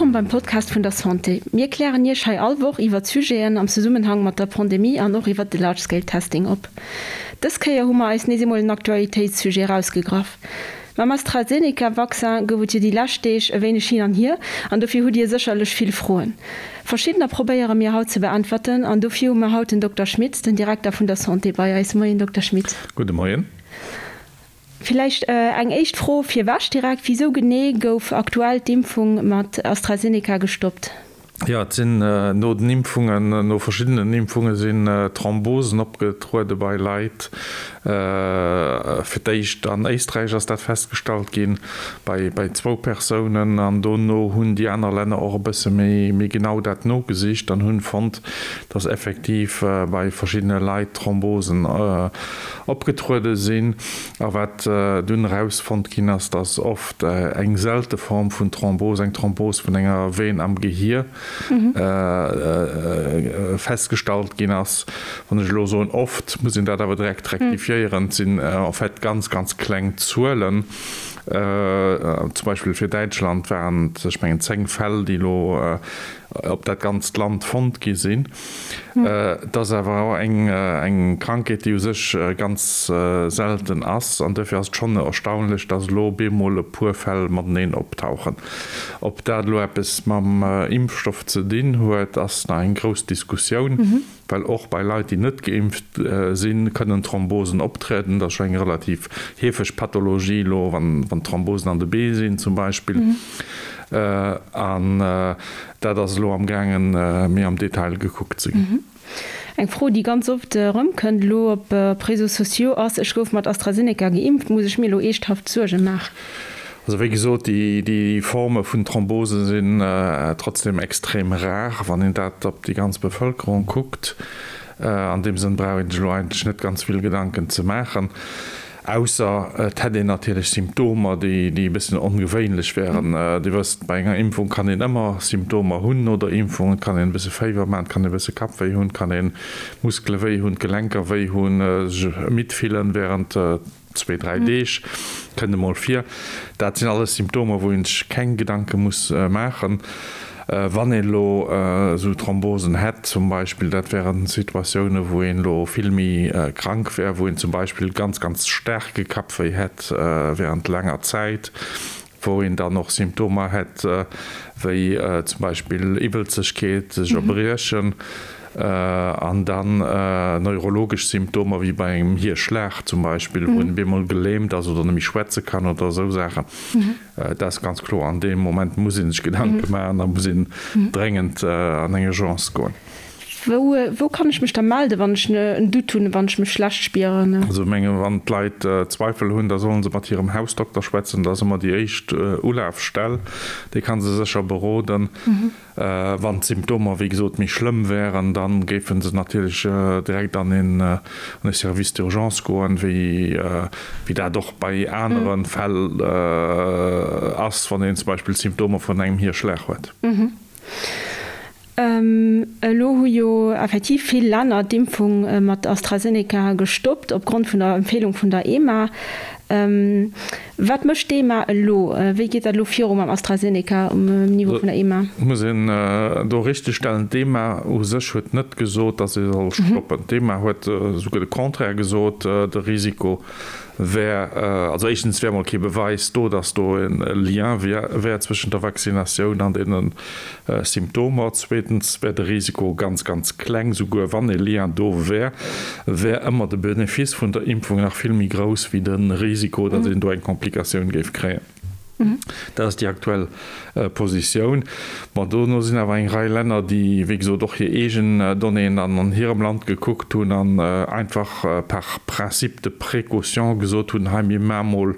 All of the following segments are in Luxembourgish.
Wëllkomm beim Podcast vun der Santé. Mir klären Iech hei all Woch iwwert Sujeten am Zesummenhang mat der Pandemie an och iwwert de Large Scale Testing op. Dës Kéier hu mer eis nees eemol en Aktualitéitssujet erausgegraff. Mam AstraZeneca-Vaccin gouf et jo déi lescht Deeg e wéineg hin an hier an dofir hutt Dir sécherlech vill Froen. Verschiddener probéiere mir haut ze beäntwerten an dofir hu mer haut den Dokter Schmitz, den Direkter vun der Santé bei eis. Moien Dokter Schmitz. Gudde Moien. Villäicht eng éischt Fro virwech direkt, Wisou genee gouf aktuell d'Impfung mat AstraZeneca gestoppt? Jo, et sinn no den Impfungen, no verschiddenen Impfunge sinn Thrombosen opgetruede bei Leit. Fir d'éischt an Éisträich ass dat festgestallt ginn, bei bei zwou Persounen. An dono hunn déi aner Länner och e bësse méi méi genau dat nogesicht an hunn fonnt, datt effektiv bei verschiddene Leit Thrombosen opgetruede sinn. A wat dunn erausfonnt ginn ass, dass oft eng selte Form vun Thrombos, eng Thrombos vun enger Vene am Gehier, festgestallt ginn ass. Wann ech elo soen oft, muss een dat awer direkt rektifiéieren, et sinn en fait ganz, ganz kleng Zuelen. Zum Beispill fir Däitschland waren et, ech mengen, 10 Fäll, déi elo op dat ganzt Land fonnt gi sinn. Et ass awer och eng Krankheet, déi u sech ganz selten ass an duerfir ass et schonn erstaunlech, datt elo op eemol e puer Fäll mateneen optauchen. Ob dat elo eppes mam Impfstoff ze dinn huet, ass nach eng grouss Diskussioun, well och bei Leit, déi net geimpft sinn, kënnen Thrombosen optrieden. Dat ass scho eng relativ heefeg Pathologie elo, wann Thrombosen an de Bee sinn zum Beispill. An dat ass elo am gaangen, méi am Detail gekuckt ze ginn. Eng Fro, déi ganz oft erëmkënnt elo op Réseaux sociaux ass, Ech gouf mat AstraZeneca geimpft, muss ech mir elo eeschthaft Suerge maachen? Also wéi gesot, déi Forme vun Thrombose sinn trotzdem extrem rar, wann een dat op déi ganz Bevëlkerung kuckt. An deem Sënn brauch een sech elo eigentlech net ganz vill Gedanken ze maachen. Ausser et hätt een natierlech Symptomer, déi e bëssen ongewéinlech wären. Dir wësst, bei enger Impfung kann een ëmmer Symptomer hunn no der Impfung. Et kann een e bësse Féiwer maachen, et kann ee e bësse Kappwéi hunn, et kann ee Muskele wéi hunn, d'Gelenker wéi hunn, sech midd fillen wärend zwee, dräi Deeg, kënnt emol vir. Dat sinn alles Symptomer, wou een sech keng Gedanke muss maachen. Wann een elo esou Thrombosen hätt zum Beispill, dat wären Situatiounen, wou een elo vill méi krank wär, wou een zum Beispill ganz, ganz staarke Kappwéi hätt während laanger Zäit, wou een dann och Symptomer hätt wéi zum Beispill Iwwelzegkeet, sech erbriechen an dann neurologesch Symptomer wéi bei engem Hierschlag zum Beispill, wou een op eemol gelähmt ass oder net méi schwätze kann oder esou Saachen. Dat ass ganz kloer. An deem Moment muss ee sech Gedanke maachen a muss een dréngend an eng Urgence goen. Wou, wou kann ech mech da melden, wann ech en Doute hunn, wann ech mech schlecht spieren? Also ech menge wann d'Leit Zweifel hunn, da solle se mat hirem Hausdokter schwätzen. Dat ass ëmmer déi éischt Ulafstell. Dee ka se sécher beroden. Wann d'Symptomer wéi gesot méi schlëmm wären, da géife se natierlech direkt an e Service d'urgence goen, wéi dat och bei anere Fäll ass, wann een zum Beispill Symptomer vun engem Hierschlag huet. Elo hu jo effektiv vill Länner d'Impfung mat AstraZeneca gestoppt, opgrond vun der Empfeelung vun der EMA. Wat mécht d'EMA elo? Wéi geet dat elo viru mam AstraZeneca um Niveau vun der EMA? Et muss een do richtegstellen, d'EMA u sech huet net gesot, datt ee soll stoppen. D'EMA huet esouguer de Contraire gesot, de Risiko wär, also éischtens wär mol kee Beweis do, datt do e Lien wär zwëschent der Vaccinatioun an deene Symptomer. Zweetens wär de Risiko ganz, ganz kleng. Souguer wann e Lien do wär, wär ëmmer de Benefice vun der Impfung nach vill méi grouss wéi de Risiko, datt een do eng Komplikatioun géif kréien. Dat ass déi aktuell Positioun. Bon, dono sinn awer eng Rei Länner, déi, wéi gesot, och hir eegen Donnéeën dann an hirem Land gekuckt hunn an einfach par principe de précaution gesot hunn, hei mir maache mol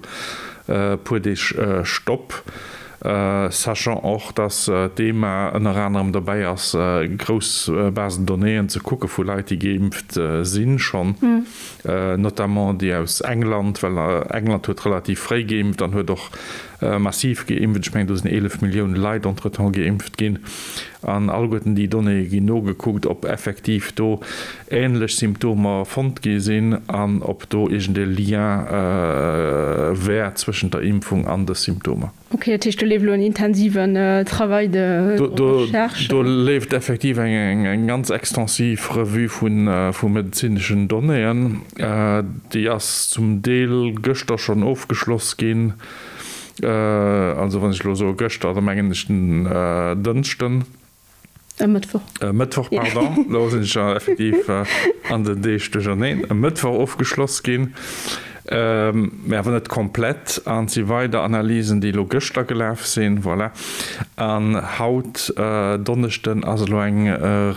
e puer Deeg Stopp. Sachant och, dass d'EMA ënner anerem dobäi ass, grouss Basen de donnéeën ze kucke vu Leit, déi geimpft sinn schonn, notamment déi aus England, well England huet relativ fréi geimpft an huet och. massiv geimpft. Ech mengen, do sinn 11 Millioune Leit entretemps geimpft ginn. An alleguerten déi Donnéeë ginn nogekuckt, ob effektiv do änlech Symptomer fonnt gi sinn an ob do iergend e Lien wär zwëschent der Impfung an de Symptomer. Ok, dat heescht do leeft elo en intensiven Travail de recherche? Do leeft effektiv eng ganz extensiv Revue vu medezineschen Donnéeën. Déi ass zum Deel gëschter schonn ofgeschloss ginn. Also wann ech elo soe gëschter, da mengen ech den Dënschden. E Mëttwoch. E Mëttwoch, pardon, elo sinn ech effektiv an den Deeg duercherneen. E Mëttwoch ofgeschloss ginn, mä awer net komplett. An et si weider Analysen, déi elo gëschter gelaf sinn. Voilà. An haut, Donneschden, ass elo eng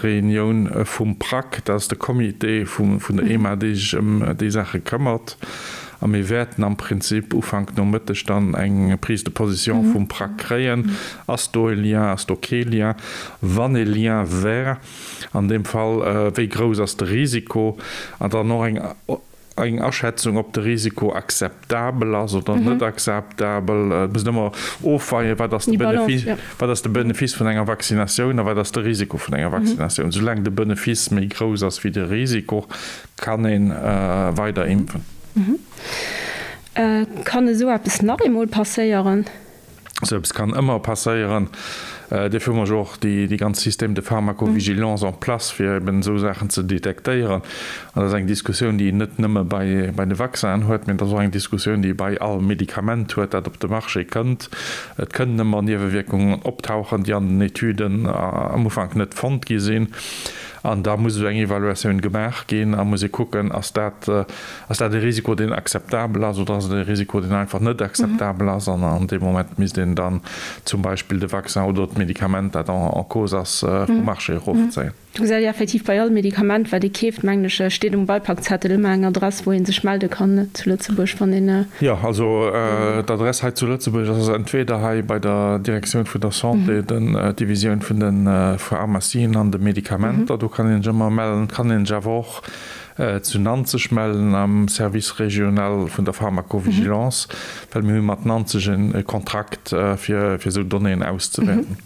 Reunioun vum PRAC, dat ass de Comité vun der EMA, dee sech ëm déi Saache këmmert. A mir wäerten am Prinzip Ufank Nomëtteg dann eng Prise de position vum PRAC kréien. Ass do e Lien, ass do kee Lien? Wann e Lien wär, an deem Fall, wéi grouss ass de Risiko? An dann och eng eng Aschätzung, ob de Risiko akzeptabel ass oder net akzeptabel. Et muss een ëmmer ofweien, wat ass de Benefice, wat ass de Benefice vun enger Vaccinatioun a wat ass de Risiko vun enger Vaccinatioun. Soulaang de Benefice méi grouss ass wéi de Risiko, Kann een weider impfen? Kann esou eppes nach eemol passéieren? Esou eppes kann ëmmer passéieren. Dofir hu mer jo och déi ganz Système de pharmacovigilance en place, fir eben esou Saachen ze detektéieren. An dat ass eng Diskussioun, déi een net nëmme bei de Vaccinen huet, mä et ass och eng Diskussioun, déi ee bei all Medikament huet, dat op de Marché kënnt. Et kënnen ëmmer Niewewierkungen optauchen, déi an den Etüden am Ufank net fonnt gi sinn. An da muss esou eng Evaluatioun gemaach ginn a muss ee kucken, ass dat, ass dat e Risiko, deen akzeptabel ass oder ass et e Risiko, deen einfach net akzeptabel ass. An an deem Moment misst een dann zum Beispill de Vaccin oder d'Medikament, dat en cause ass, vum Marché erofzéien. Do gesäit ee effektiv bei all Medikament, wat ee keeft, mengen ech, steet um Beipakzettel ëmmer eng Adress, wou ee sech melde kann zu Lëtzebuerg, wann een. Jo, also d'Adress hei zu Lëtzebuerg ass entweder hei bei der Direktioun vun der Santé, den Divisioun vun de Pharmacien an de Medikamenter, do kann een sech ëmmer mellen. Et kann een sech awer och zu Nanzeg mellen am Service régional vun der Pharmacovigilance, well mir hu mat Nanzeg e Kontrakt fir esou Donnéeën auszewäerten.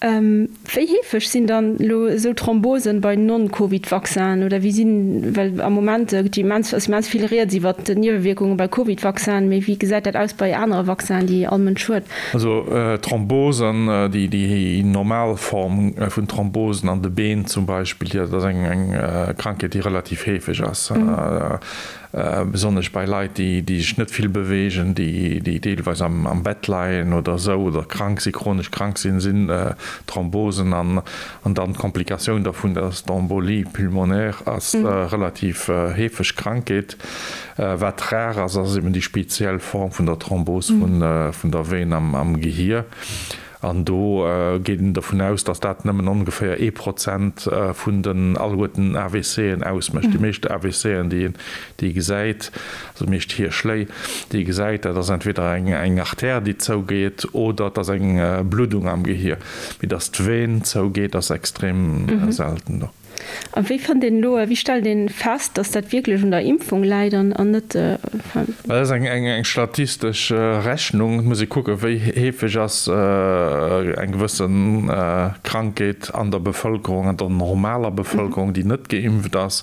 Wéi heefeg sinn dann elo esou Thrombosen bei Non-Covid-Vaccinen oder wéi sinn, well am Moment gëtt jo immens, ass immens vill rieds iwwert d'Niewewierkunge bei Covid-Vaccinen, mee wéi gesäit dat aus bei anere Vaccinen, déi all Mënsch huet? Also Thrombosen, déi déi normal Form vun Thrombosen an de Been zum Beispill, dat ass eng Krankheet, déi relativ heefeg ass. Besonnesch bei Leit, déi sech net vill beweegen, déi deelweis am Bett leien oder esou oder krank sinn, chronesch krank sinn, sinn Thrombosen an dann d'Komplikatioun dervun, dat ass d'Embolie pulmonaire, ass relativ heefeg Krankheet. Wat rar ass, ass eben déi speziell Form vun der Thrombos vun der Vene am Gehier. An do geet een dovun aus, datt dat nëmmen ongeféier ee Prozent vun den alleguerten AVCen ausmécht. Déi meescht AVCen, déi ee gesäit, also déi meescht Hierschléi, déi ee gesäit, dat ass entweder eng Artère, déi zougeet, oder et ass eng Bluddung am Gehier. Mee datt d'Ven zougeet, ass extrem selten do. A wéi fënnt een elo, wéi stellt een fest, dass dat wierklech un der Impfung läit an net, enfin. Dat ass eng statistesch Rechnung. Et muss ee kucken, wéi heefeg ass eng gewësse Krankheet an der Bevëlkerung, an der normaler Bevëlkerung, déi net geimpft ass.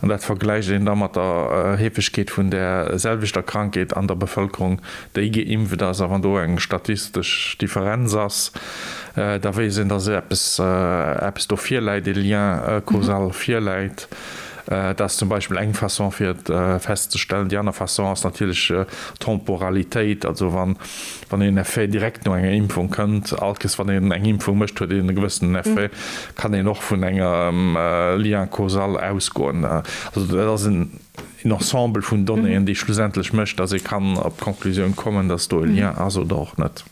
An dat vergläicht een da mat der Heefegkeet vun där selwechter Krankheet an der Bevëlkerung, déi geimpft ass. A wann do eng statistesch Differenz ass, da weess een, dass eppes, eppes do virläit, e Lien causal virläit. Dat ass zum Beispill eng Façon, fir et festzestellen. Déi aner Façon ass natierlech d'Temporalitéit, also wann, wann een Effet direkt no enger Impfung kënnt, all Kes wann een eng Impfung mécht, huet een e gewëssenen Effet, kann een och vun engem Lien causal ausgoen. Also dat ass en Ensemble vun Donnéeën, déi schlussendlech mécht, dass ee kann op d'Conclusioun kommen, dass do e Lien ass oder och net.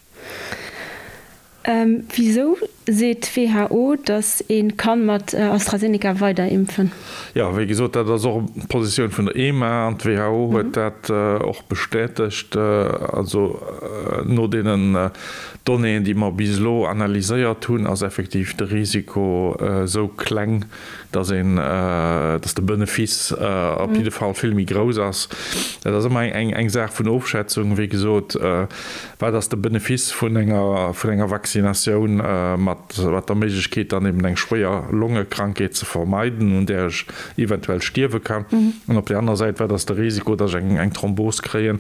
Wisou? Seet d'WHO, datt ee ka mat AstraZeneca weider impfen? Jo, wéi gesot, dat ass och d'Positioun vun der EMA an d'WHO huet dat och bestätegt. Also no deenen Donnéeën, déi mer bis elo analyséiert hunn, ass effektiv de Risiko esou kleng, datt een, datt de Benefice op jidde Fall vill méi grouss ass. Dat ass ëmmer eng Saach vun Ofschätzung, wéi gesot. Wat ass de Benefice vun enger, vun enger Vaccinatioun mat, mat der Méiglechkeet dann eben eng schwéier Longekrankheet ze vermeiden, un där ech eventuell stierwe kann? An op där anerer Säit, wat ass de Risiko, datt ech eng, eng Thrombos kréien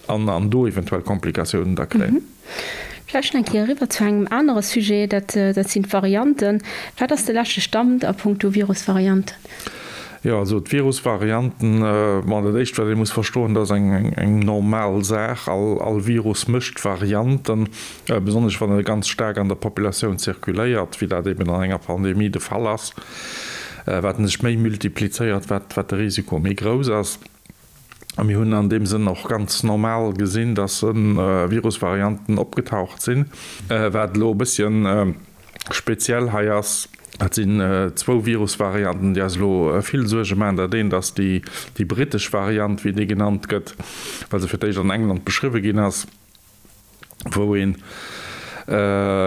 an, an do eventuell Komplikatiounen da kréien? Vläicht nach eng Kéier eriwwer zu engem anere Sujet, dat, dat sinn d'Varianten. Wat ass de leschte Stand a puncto Virusvarianten? Jo, also d'Virusvarianten, bon, dat éischt wat ee muss verstoen, dat ass eng normal Saach, all Virus mécht Varianten, besonnesch wann e ganz staark an der Populatioun zirkuléiert, wéi dat eben an enger Pandemie de Fall ass. Wat en sech méi multiplizéiert, wat de Risiko méi grouss ass. A mir hunn an deem Sënn och ganz normal gesinn, dass Virusvarianten opgetaucht sinn. Wat elo e bësschen speziell hei ass, dat sinn zwou Virusvarianten, déi eis elo vill Suerge maachen. Dat eent ass déi brittesch Variant, wéi déi genannt gëtt, well se fir d'éischt an England beschriwwe ginn ass. wou ee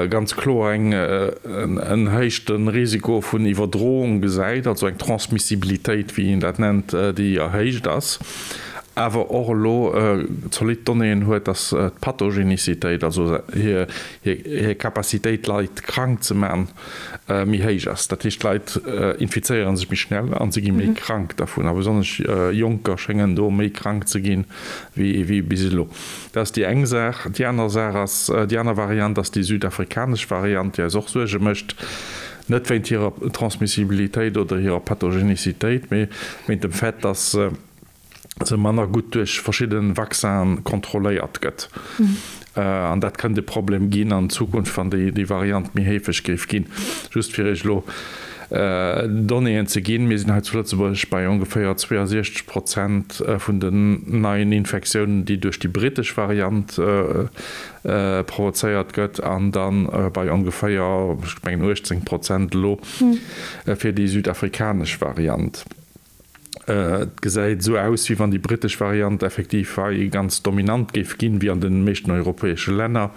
ganz kloer en erhéichte Risiko vun Iwwerdroung gesäit, also eng Transmissibilitéit, wéi een dat nennt, déi erhéicht ass, awer och elo zolidd Donnéeën huet, datt d'Pathogenicitéit, also hir Capacitéit, Leit krank ze maachen, méi héich ass. Dat heescht, d'Leit infizéiere sech méi schnell a si gi méi krank dervun, a besonnesch Jonker schéngen do méi krank ze ginn wéi bis elo. Dat ass déi eng Saach. Déi aner Saach ass, déi aner Variant ass déi südafrikanesch Variant, déi eis och Suerge mécht, net wéint hirer Transmissibilitéit oder hirer Pathogenicitéit, mee wéint dem Fait, dass se manner gutt duerch verschidde Vaccinen kontrolléiert gëtt. An dat kënnt e Problem ginn an Zukunft, wann déi Variant méi heefeg géif ginn. Just fir Iech elo Donnéeën ze ginn, Mir sinn hei zu Lëtzebuerg bei ongeféier 62 Prozent vun den neien Infektiounen, déi duerch déi brittesch Variant provozéiert gëtt, an da bei ongeféier, ech mengen 18 Prozent elo fir déi südafrikanesch Variant. Et gesäit esou aus, wéi wann déi brittesch Variant effektiv hei ganz dominant géif ginn, wéi an de meeschten europäesche Länner.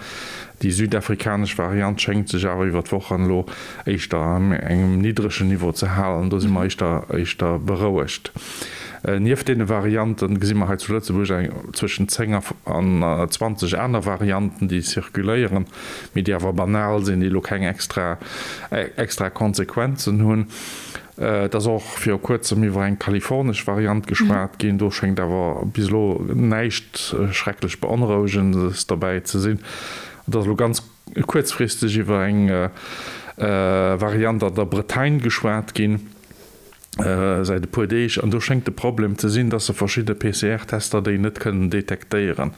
Déi südafrikanesch Variant schéngt sech awer iwwer d'Wochen elo éischter an engem niddregen Niveau ze halen. Do si mer éischter éischter berouegt. Nieft deene Variante gesi mer hei zu Lëtzebuerg eng zwëschen 10 an 20 aner Varianten, déi zirkuléieren, mee déi awer banal sinn, déi elo keng extra extra Konsequenzen hunn. Et ass och viru kuerzem iwwer eng kalifornesch Variant geschwat ginn. Do schéngt awer bis elo näischt schrecklech Beonrouegendes derbäi ze sinn. Et ass elo ganz kuerzfristeg iwwer eng Variant an der Bretagne geschwat ginn, säit e puer Deeg. An do schéngt de Problem ze sinn, dass se verschidde PCR-Tester déi net kënnen detektéieren.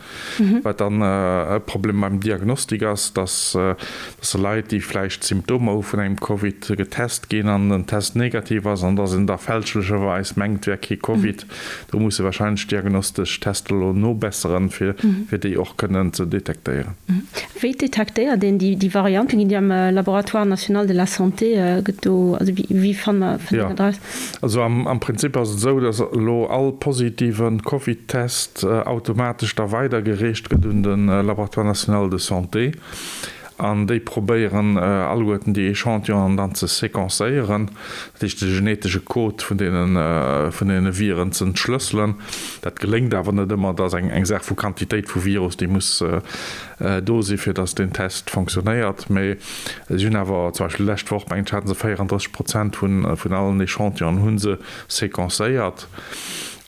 Wat dann e Problem beim Diagnostik ass, dass dass Leit, déi vläicht Symptomer hu vun engem Covid, getest ginn an den Test negativ ass an dass een da fälschlecherweis mengt, et wär kee Covid. Do musse warscheinlech d'diagnostesch Tester elo nobesseren, fir déi och kënnen ze detektéieren. Wéi detektéiert een déi Varianten? Ginn déi am Laboratoire national de la santé, gëtt do, also wéi fanne mer dat eraus? Also am Prinzip ass et esou, dass elo all positive Covid-Test automatesch da weidergereecht gëtt un de Laboratoire national de santé. An déi probéieren alleguerten déi Echantillonen dann ze sequencéieren, dat heescht de genetesche Code vun deene vun deene Viren ze entschlësselen. Dat geléngt awer net ëmmer, dat ass eng eng Saach vu Quantitéit vu Virus, déi muss do si fir datt deen Test fonctionnéiert. Mee si hunn awer zum Beispill d'lescht Woch, mengen ech, hate se 34 Prozent vun vun allen Echantillonen hu se sequencéiert.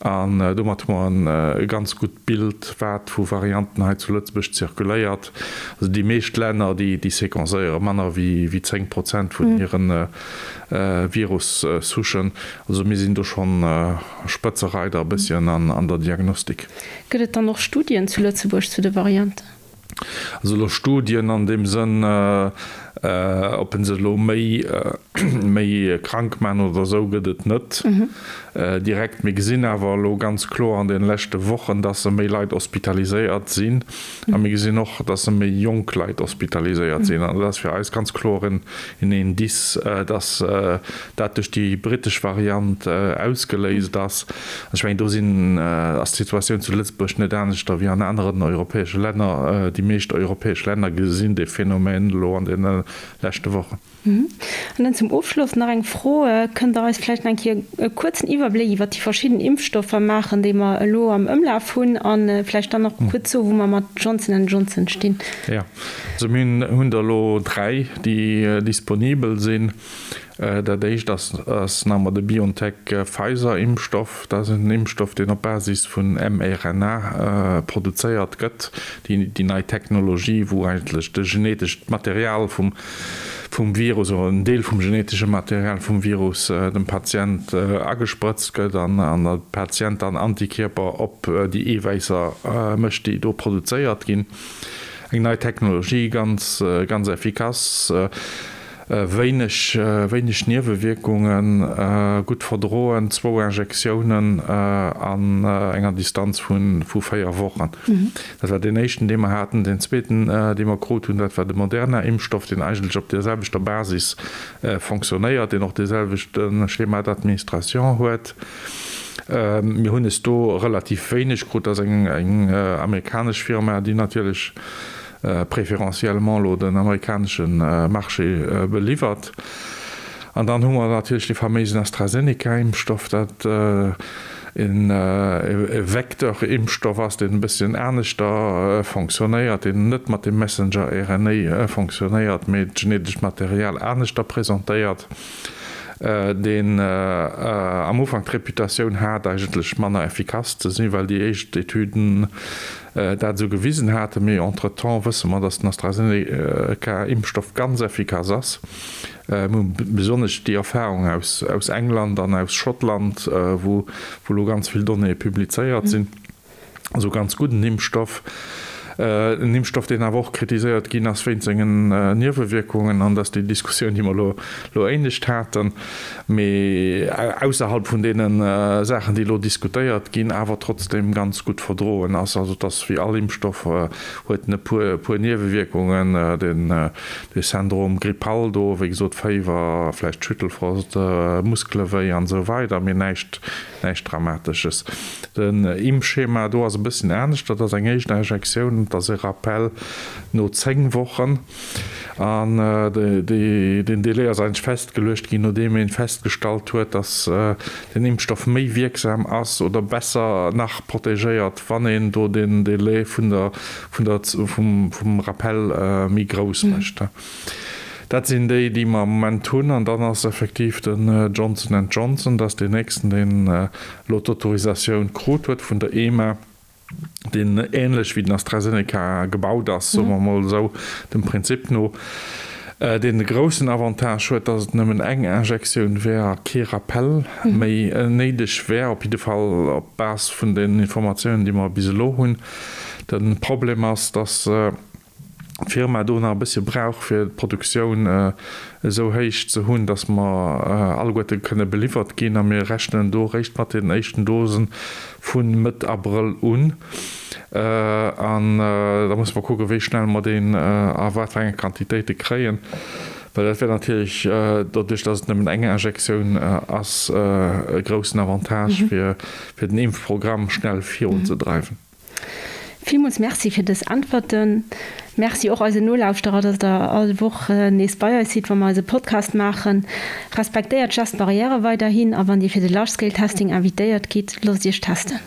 An domat hu mer e ganz gutt Bild, wat vu Varianten hei zu Lëtzebuerg zirkuléiert. Also déi meescht Länner, déi sequencéiere manner wéi 10 Prozent vun hire Virus-Souchen. Also mir sinn do schonn Spëtzereider e bësschen an der Diagnostik. Gëtt et dann och Studien zu Lëtzebuerg zu de Varianten? Also elo Studien an deem Sënn. Ob en se elo méi méi krank man oder esou, gëtt et net direkt. Mir gesinn awer elo ganz kloer an deene leschte Wochen, dass se méi Leit hospitaliséiert sinn a mir gesinn och, dass se méi jonk Leit hospitaliséiert sinn. An dat ass fir eis ganz kloer en Indice, dass dat duerch déi brittesch Variant ausgeléist ass. Ech mengen, do sinn, ass d'Situatioun zu Lëtzebuerg net aneschter wéi an aneren europäesche Länner. Déi meescht europäesch Länner gesinn dee Phänomen elo an deene leschte Wochen. An dann zum Ofschloss nach eng Fro, Kënnt Der eis vläicht nach eng Kéier e kuerzen Iwwerbléck iwwert déi verschidden Impfstoffer maachen, déi mer elo am Ëmlaf hunn, a vläicht dann och kuerz soen, wou mer mat Johnson and Johnson stinn? Jo, also mir hunn der elo 3, déi disponibel sinn. Dat éischt ass nach emol de BioNTech-Pfizer-Impfstoff. Dat ass en Impfstoff, deen op Basis vun mRNA produzéiert gëtt, déi nei Technologie, wou eigentlech de genetescht Material vum Virus oder en Deel vum genetesche Material vum Virus dem Patient agesprëtzt gëtt an de Patient dann Antikierper op déi Eewäisser mécht, déi do produzéiert ginn. Eng nei Technologie, ganz, ganz effikass. Wéineg, wéineg Niewewierkungen, gutt verdroen, zwou Injektiounen an enger Distanz vu 4 Wochen. Dat war deen éischten, dee mer haten. Deen zweeten, dee mer krut hunn, dat war de Moderna-Impfstoff, deen eigentlech op där selwechter Basis fonctionnéiert, deen och dee selwechte Schéma d'administration huet. Mir hunn es do relativ wéineg krut. Dat ass eng amerikanesch Firma, déi natierlech préférentiellement elo den amerikanesche Marché beliwwert. An dann hu mer natierlech dee faméisen AstraZeneca-Impfstoff, dat e Vecteur-Impfstoff ass, deen e bësschen aneschter fonctionnéiert, deen net mat dem Messenger-RNA fonctionnéiert, mee d'genetescht Material aneschter presentéiert, deen am Ufank d'Reputatioun hat, eigentlech manner effikass ze sinn, well déi éischt Etüden dat esou gewisen haten. Mee entretemps wësse mer, datt den AstraZeneca-Impfstoff ganz effikass ass. Mir hu besonnesch déi Erfahrung aus England an aus Schottland, wou elo ganz vill Donnéeë publizéiert sinn. Also ganz gudden Impfstoff. En Impfstoff, deen awer och kritiséiert ginn ass wéint sengen Niewewierkungen. An dat ass déi Diskussioun, déi mer elo éinescht haten. Mee ausserhalb vun deene Saachen, déi elo diskutéiert ginn, awer trotzdeem ganz gutt verdroen ass. Also et ass wéi all Impfstoff, huet en e puer Niewewierkungen, den de Syndrome grippal do, wéi gesot Féiwer, vläicht Schüttelfrost, Muskelewéi an esou weider, mee näischt näischt Dramatesches. Den Impfschema do ass e bësschen anescht, dat ass eng éischt Injektioun, dat ass e Rappel no 10 Wochen an deen Délai ass eigentlech festgeluecht ginn, nodeem ee festgestallt huet, datt den Impfstoff méi wierksam ass oder besser nach protegéiert, wann een do den Délai vun der, vun der, vum Rappel méi grouss mécht. Dat sinn déi, déi mer am Moment hunn. An dann ass effektiv den Johnson and Johnson, dat ass deen nächsten, deen elo d'Autorisatioun krut huet vun der EMA, deen änlech wéi den AstraZeneca gebaut ass, soe mer emol esou, dem Prinzip no, deen de groussen Avantage huet, datt et nëmmen eng Injektioun wär a kee Rappel méi néideg wär, op jidde Fall op Base vun den Informatiounen, déi mer bis elo hunn. De Problem ass, datt d'Firma do nach e bëssche brauch, fir d'Produktioun esou héich ze hunn, datt mer alleguerte kënne beliwwert ginn. A mir rechnen do eréischt mat den éischten Dose vu Mëtt Abrëll un. An da musse mer kucken, wéi schnell mer deen a wat fir enge Quantitéite kréien. Well dat wär natierlech, doduerch datt et nëmmen eng Injektioun ass, e groussen Avantage, fir den Impfprogramm schnell virunzedreiwen. Villmools Merci fir dës Äntwerten. Merci och eisen Nolauschterer, dass der all Woch nees bei eis sidd, wa mer eise Podcast maachen. Respektéiert d'Gest Barrièrë weiderhin a wann Dir fir de Large Scale Testing invitéiert gitt, loosst Iech testen.